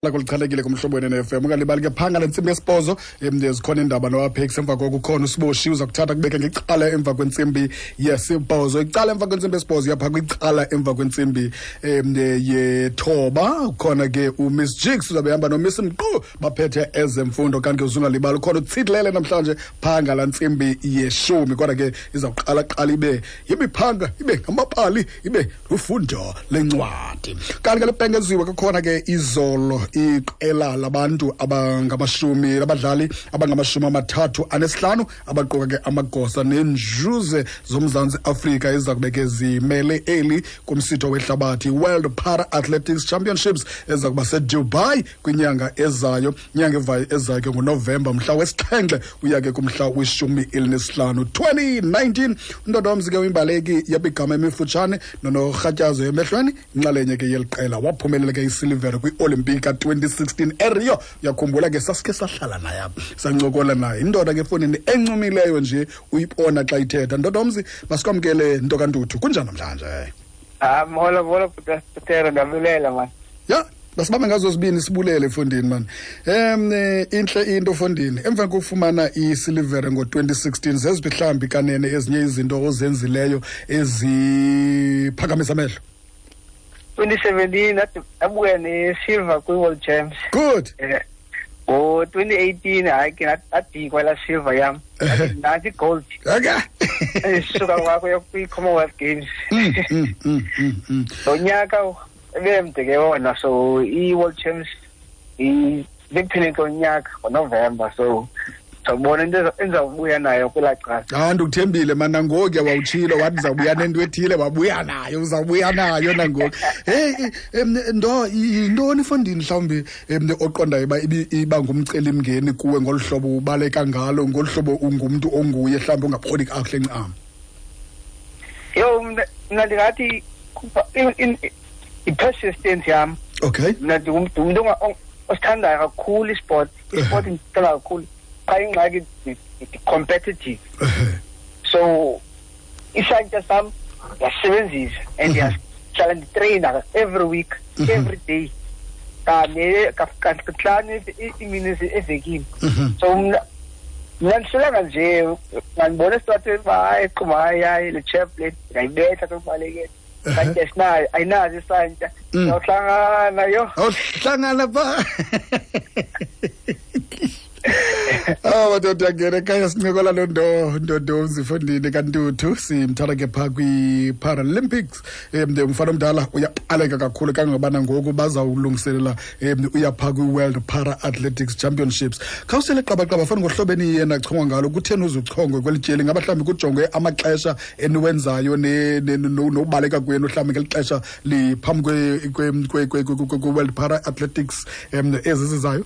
Kulichanekile kumhlobo wenene-FM. Ungalibali ke phanga le ntsimbi yesibhozo, zikhona iindaba noApex. Emva koko ukhona uSiboshi, uza kuthatha kubeke ngecala emva kwentsimbi yesibhozo. Icala emva kwentsimbi yesibhozo yapha kwicala emva kwentsimbi yethoba. Ukhona ke uMiss Jigs, uzabe ehamba noMiss Mqu, baphethe ezemfundo. Kanti ke uzungalibali ukhona uTsitlele namhlanje phanga la ntsimbi yeshumi. Kodwa ke izawuqala qala ibe yimiphanga, ibe ngamabali, ibe lufundo lencwadi. Kanti ke libhengeziwe kukhona ke izolo iqela labantu abangamashumi, labadlali abangama-35 abaquka ke amagosa neenjuze zoMzantsi Afrika eza kube ke zimele eli kumsitho wehlabathi World Para Athletics Championships eza kuba seDubai kwinyanga ezayo. Inyanga evayo ezayo ke nguNovemba mhla wesixhenxe uya ke kumhla we-15 2019. Undoda womzi ke uyimbaleki yabigama emifutshane nonorhatyazo emehlweni, inxalenye ke yeli qela, waphumelela ke isilivere kwi-Olimpiki ka-2016 eRio. Uyakhumbula ke sasikhe sahlala naye apha, sancokola naye. Indoda ke efowunini encumileyo nje, uyibona xa ithetha. Ndoda womzi, masikwamkele nto kaNtuthu. Kunjani namhlanje? Ah, molo molo Butero, ndiyabulela man. Ya, basibambe ngazo zibini sibulele efondini man. Intle into fondini. Emva kokufumana isilivere ngo-2016, zeziphi mhlawumbi kanene ezinye izinto ozenzileyo eziphakamisa amehlo? 2017 ndabuya ne-silver kwi-World Champs. Good. Ngo-2018 hayi ke ndadikwa laa silver yam. Nantsi i-gold. Okay. Suka kwakho kwi-Commonwealth Games. Lo nyaka ebemde ke wona, so i-World Champs bekupheleni konyaka ngoNovemba, so ndizawubona into endizawubuya nayo kwelaa cala. Ah, ndikuthembile man, nangoku wawutshilo wathi ndizawubuya nento ethile, wabuya nayo, uzawubuya nayo nangoku. Hey, ndo yintoni fondini mhlawumbi oqondayo uba iba ngumcelimngeni kuwe ngolu hlobo ubaleka ngalo, ngolu hlobo ungumntu onguye mhlawumbi ongaboni kakuhle ncam? Yho, mna ndingathi i-persistence yam. Okay. Mna ndingumntu osithandayo kakhulu isport. Isport ndisithanda kakhulu. Xa ingxaki ndi-competitive. So isantya sam ndiyasebenzisa and ndiyahlala nditreyina every week, every day. Kane kahlanu iimini evekini. So mna ndihlelanga nje, ngandibona esitratweni uba hayi quma, hayi hayi le chap le ndingayibetha xa kubalekele. Santya sinayo, ayinazo isantya. Sawuhlangana yho. Awuhlangana pha. Ah, madoda angena ekhaya sincokola loo nto ndodomzi fondini kaNtuthu, simthatha ke phaa kwi-Paralympics. Umfana omdala uyaqaleka kakhulu kangangobana ngoku bazawulungiselela uya phaa kwi-World Para Athletics Championships. Khawusele qabaqaba fana ngohlobo eniye nachongwa ngalo, kutheni uzuchongwe kweli tyeli? Ngaba mhlawumbi kujongwe amaxesha eniwenzayo nokubaleka kwenu mhlawumbi ngeli xesha liphambi kwe-World Para Athletics ezi zizayo?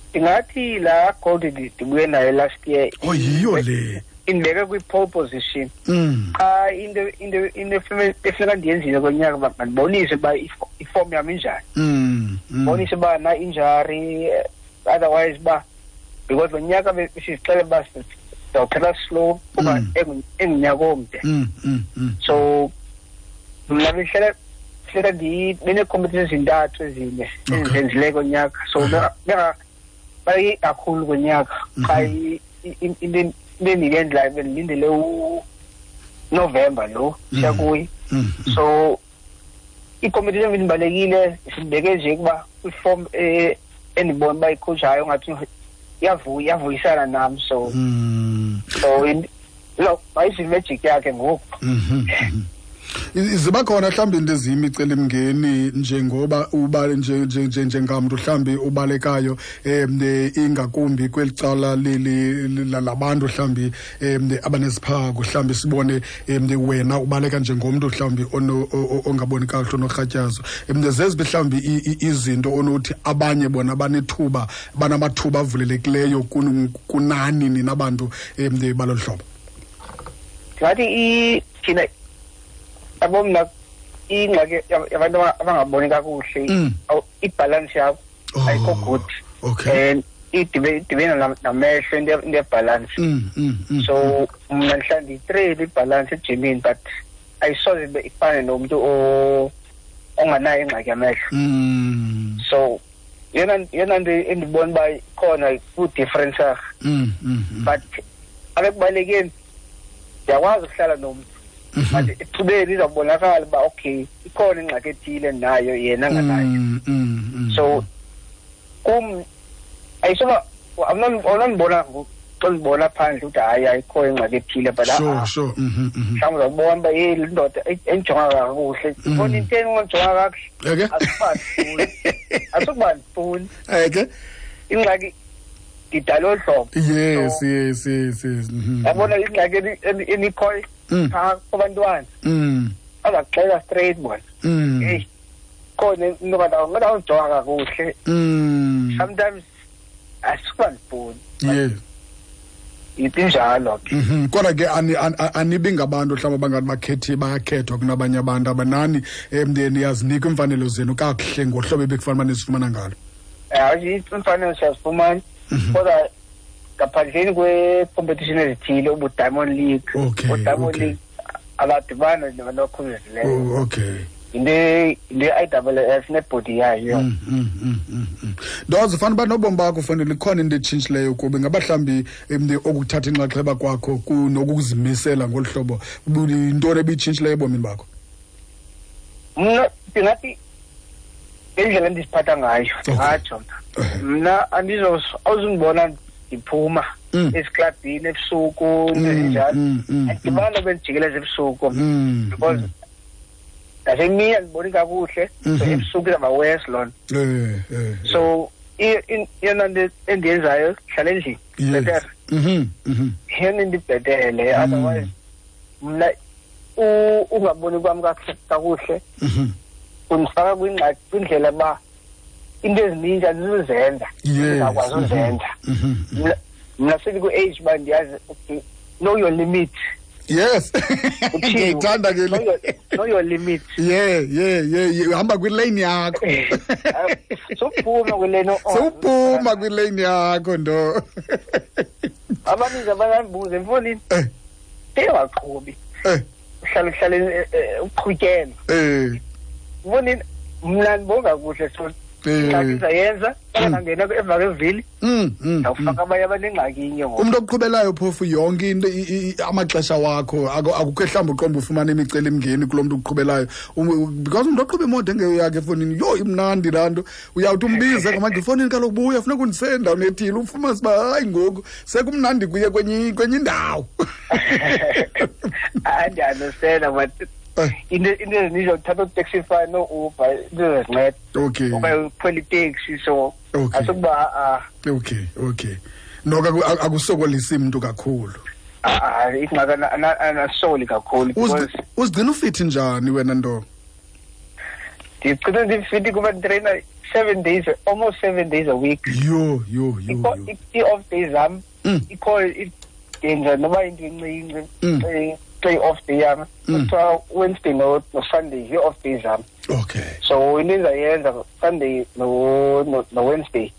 Ndingathi laa gold ndibuye nayo last year. Oh, yiyo le. Indibeke kwi-pole position. Xa into efuneka ndiyenzile konyaka uba mandibonise uba iform yam injani. Ndibonise uba na injury, otherwise uba because lo nyaka besizixele uba sizawuphela slow kuba engunyaka omde. So mna bendihlala funeka bene-competition ezintathu ezine ezizenzileyo konyaka. So bayi kakhulu konyaka. Xa into endiyendlayo bendilindele uNovemba lo siya kuye. So i-competition bendibalekile sibeke nje ukuba kwi-form endibona uba icoach hayo ngathi iyavuyisana nam. So so lo mayizi-magic yakhe ngoku. Ziba khona mhlawumbi into eziyimicelimngeni njengoba uba njengamntu mhlawumbi ubalekayo ingakumbi kweli cala labantu mhlawumbi abaneziphako, mhlawumbi sibone wena ubaleka njengomntu mhlawumbi ongaboni kakuhle onorhatyazo. Zeziphi mhlawumbi izinto onothi abanye bona banethuba, banamathuba avulelekileyo kunani nina bantu balolu hlobo? Ndingathi thina yabo mna ingxaki yabantu abangaboni kakuhle, ibhalansi yakho ayikho good. Okay. And idibene namehlo into yebhalansi. So mna ndihlala ndiyitreyine ibhalansi ejimini, but ayisoze ibe ifane nomntu onganayo ingxaki yamehlo. So Yena nto endibona uba ikhona ku-difference, but abekubalekeni ndiyakwazi ukuhlala nomntu, but ethubeni izawubonakala uba okay, ikhona ingxaki ethile nayo yena anganayo. So kum ayisoba awunondibona xa ndibona phandle ukuthi hayi, ayikho ingxaki ethile, but mhlawumbi uzawubona uba yeyi, le ndoda endijonga kakuhle, ibona into endijonga kakuhle. Eke. Asukuba ndifuni. Eke. Ingxaki ndidala olu hlobo. Yes, yes yes yes Yabona ingxaki enikhoyo phaa kubantwana, bazakuxela straight bona, heyi, khona into kanti ngathi awuzijonga kakuhle. Sometimes asukuba ndifuni. Injalo ke. Kodwa ke anibi ngabantu mhlawumbi abangathi bakhethi bayakhethwa kunabanye abantu, abanani niyazinika iimfanelo zenu kakuhle ngohlobo ebekufanele uba nizifumana ngalo. Hayi, iimfanelo siyazifumana, kodwa ngaphandleni kwe-competition ezithile, ubu-Diamond League, o-Diamond League abadibana nabantu abakhubazekileyo. Oh, okay. Yinto ye-IAAF nebhodi yayo. Ndoze fanele uba nobomi bakho fanele ikhona into etshintshileyo kuba ingaba mhlawumbi okuthatha inxaxheba kwakho nokuzimisela ngolu hlobo, yintoni ebitshintshileyo ebomini bakho? Mna ndingathi ngendlela endiziphatha ngayo, ndingatsho mna. Mna awuzundibona ndiphuma eziklabhini ebusuku, into ezinjalo. Andidibani bendijikeleza ebusuku because nasemini andiboni kakuhle, so ebusuku izawuba worse loo nto. So eyona nto endiyenzayo, hlala endlini, better. Yeyona into ibhetele. Otherwise mna ungaboni kwam kakuhle kundifaka kwingxaki, kwindlela uba into ezininzi andizuzenza, ndingakwazi uzenza. Mna sendiku-age uba ndiyazi, okay, know your limit. Uthini? Ndiyayithanda ke le. Know your limit. Yeah. Uhamba kwilane yakho. Sowuphuma kwilane. Sowuphuma kwilane yakho ndo. Abaninzi abayandibuza emfonini. Sewaqhubi. Uhlala uhlale uqhutyelwa. Mfonini, mna ndibonga kuhle, so ingxaki ndizayenza, xa ndangena emva kwevili, ndawufaka abanye abanengxaki inye ngoku. Umntu okuqhubelayo phofu yonke into, amaxesha wakho, akukho mhlawumbi uqonda ufumana imicelimngeni kulo mntu uqhubelayo. Because umntu oqhuba imoto engeyo yakhe efowunini, yho, imnandi laa nto. Uyawuthi umbize ngamandla efowunini, kaloku buya, funeka undise endaweni ethile, ufumanise uba hayi, ngoku sekumnandi kuye kwenye indawo. Hayi, ndiya-understanda, but into ezininzi uthatha uTaxify no-Uber, into ezinceda. Okanye ukhwela iteksi, so asukuba, ah. Okay. Noko akusokolisi mntu kakhulu. Ah, ingxaki anasoli kakhulu because Uzigcina ufithi njani wena nto? Ndigcina ndifithi kuba nditreyina 7 days, almost 7 days a week. Yho, yho, yho, yho. I-off days zam, ikho ndenza noba into encinci, xa i-off day yam, kuthiwa Wednesday no Sunday yi-off days zam. So into endizayenza Sunday no Wednesday,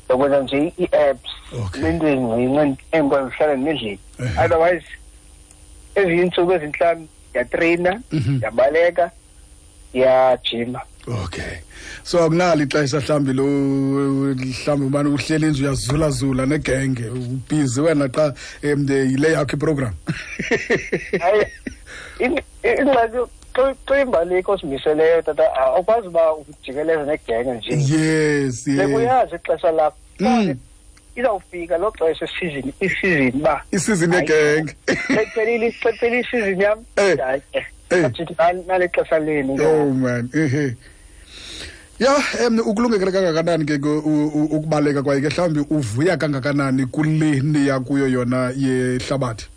ndokwenza nje ii-apps, nento ezincinci endikwazi uhlala ndendlini. Otherwise ezinye iintsuku ezintlanu ndiyatreyina, ndiyabaleka, ndiyajima. Okay. So akunalo ixesha mhlawumbi lo, mhlawumbi ubani uhleli nje uyazulazula negenge, ubhizi wena xa yile yakho iprogram. Hayi, ingxaki xa imbaleki ozimiseleyo tata, awukwazi uba ujikeleze negenge nje. Bekuyazi ixesha lakho. Izawufika lo xesha isizini uba Isizini yegenge. Xa iphelile isizini yam, hayi, athi nale xesha lenu. Oh man, ehe. Ya, ukulungekele kangakanani ke ukubaleka kwaye ke mhlawumbi uvuya kangakanani kule niya kuyo yona yehlabathi?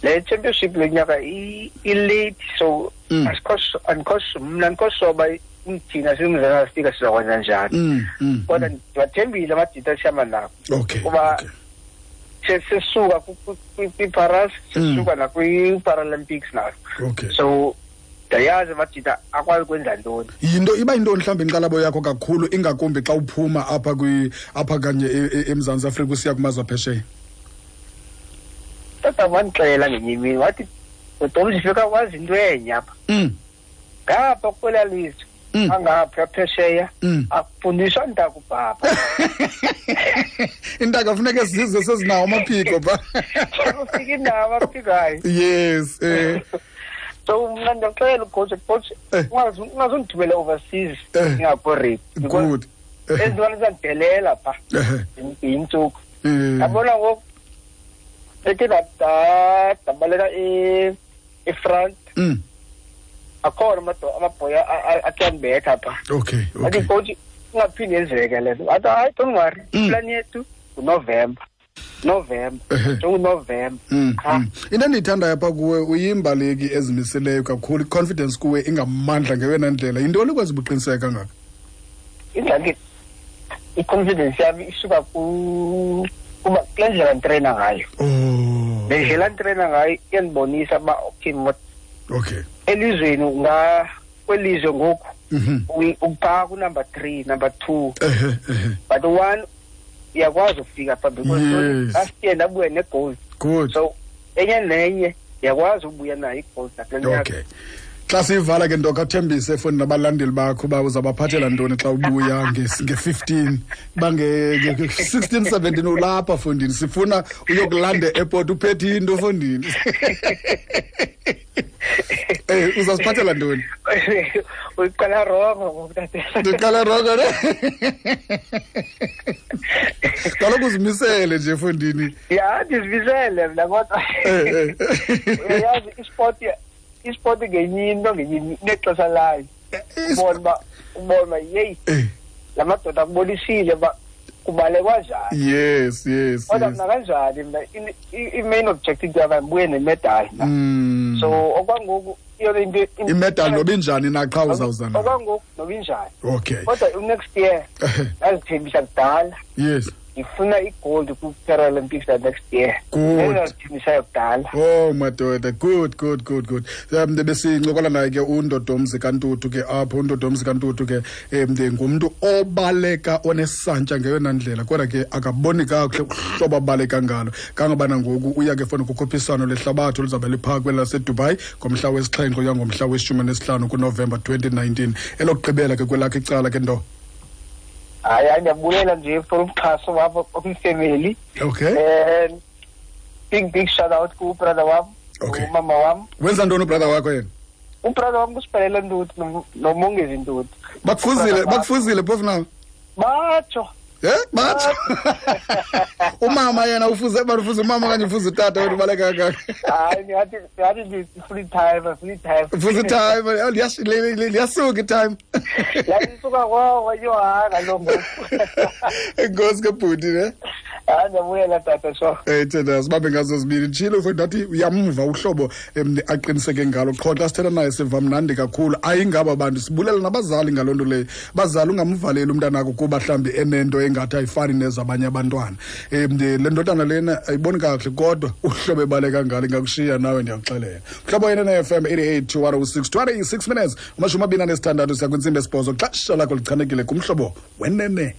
Le championship le nyaka i-late, so mna andikho soba thina siMzantsi Afrika sizakwenza njani. Kodwa ndiwathembile amajita esihamba nabo. Kuba sesisuka kwi-Paras, sesisuka nakwi-Paralympics nazo. So ndiyayazi amajita akwazi kwenza ntoni. Yinto iba yintoni mhlawumbi inkxalabo yakho kakhulu, ingakumbi xa uphuma apha kanye eMzantsi Afrika usiya kumazwe aphesheya? Tata wandixelela ngenye imini wathi, Dom, sifika wazi into enye apha. Ngapha kwelaa lizwe Angapha phesheya akufundiswa ntaka ubhaba. Intaka funeka sizwe sezinawo amaphiko pha. Ufika inawo amaphiko hayi. Yes. So mna ndiyakuxelela ucoach, ungazundithumela overseas ngingakho ready. Good. Ezintwana ziyadidelela pha. Yintsuku. Yabona ngoku ethi ndabaleka e-front. Akhona amabhoya akuyandibetha pha. Okay. Athi coach ungaphinde yenzeke le nto. Athi hayi, don't worry. Plan yethu nguNovember. November. NjenguNovember. Into endiyithandayo apha kuwe, uyimbaleki ezimiseleyo kakhulu, i-confidence kuwe ingamandla ngeyona ndlela. Yintoni ikwenza ubuqiniseke kangaka? Ingxaki i-confidence yami isuka kuba kule ndlela nditreyina ngayo. Le ndlela nditreyina ngayo iyandibonisa uba okay, okay. Elizweni kwelizwe ngoku uphaa ku-number 3, number 2. But one uyakwazi ukufika pha because last year ndabuya ne-gold. Good. So enye nenye uyakwazi ubuya nayo i-gold nakule nyaka. Okay. Xa siyivala ke nto kathembise efowunini nabalandeli bakho uba uzabaphathela ntoni xa ubuya nge-15, uba nge-16, 17 ulapha fondini, sifuna uyokulanda e-airport uphethe into fondini. Uzasiphathela ntoni? Uyiqala rongo ngoku, tata. Ndiqala rongo ne? Kaloku uzimisele nje fondini. Ya, ndizimisele mna kodwa. Uyayazi isport ngenye into, ngenye inexesha layo. Ubona uba yeyi, la madoda akubonisile uba kubalekwa njani. Yes, yes. Kodwa mna kanjani mna i-main objective yam ndibuye nemedali mna. So okwangoku iyona into Imedali noba injani na qha uzawuza nayo. Okwangoku noba injani. Okay. Kodwa next year ndazithembisa kudala. Yes. Ngifuna i-gold ku-Paralympics next year. Good. Ndazithembisayo kudala. Oh madoda, good, good, good, good. Besincokola naye ke uNdodomzi kaNtuthu ke apho. uNdodomzi kaNtuthu ke ngumntu obaleka onesantya ngeyona ndlela, kodwa ke akaboni kakuhle uhlobo abaleka ngalo. Kangabana ngoku uya ke fona kukhuphiswano lehlabathi oluzawube liphaa kweli laseDubai ngomhla wesixhenxe uya ngomhla weshumi nesihlanu kuNovemba 2019. Elokugqibela ke kwelakhe icala ke nto. Hayi, ndiyabuyela nje for umxhaso wapha kwifemeli. Okay. Big shout out ku brother wam. Okay. Umama wam. Wenza ntoni ubrother wakho yena? Ubrother wam kusiphelele Ntuthu noMongezi Ntuthu. Bakufuzile phofu nawe? Batsho. Batsho. Umama yena ufuze, bafuze umama okanye ufuze utata wena ubaleka kangaka? Hayi, ndingathi ndifuna i-time, ndifuna i-time. Ufuze i-time, oh, liyasuka i-time. Yayisuka kwawo, yho, hayi, kaloku ngoku. Enkosi ke bhuti, ne? Hayi, ndiyabuyela tata, sure. Thina sibambe ngazo zibini. Nditshilo mfowethu, ndathi uyamva uhlobo aqiniseke ngalo. Qho xa sithetha naye siva mnandi kakhulu. Ayingaba bantu, sibulela nabazali ngaloo nto leyo. Bazali, ungamvaleli umntanakho kuba mhlawumbi enento engathi ayifani nezabanye abantwana. Le ndodana lena ayiboni kakuhle, kodwa uhlobo ebaleka ngalo ingakushiya nawe, ndiyakuxelela. Mhlobo wena ne-F M eighty-eight to one oh six, 26 minutes, amashumi abini anesithandathu siya kwintsimbi yesibhozo. Xesha lakho lichanekile kumhlobo wenene.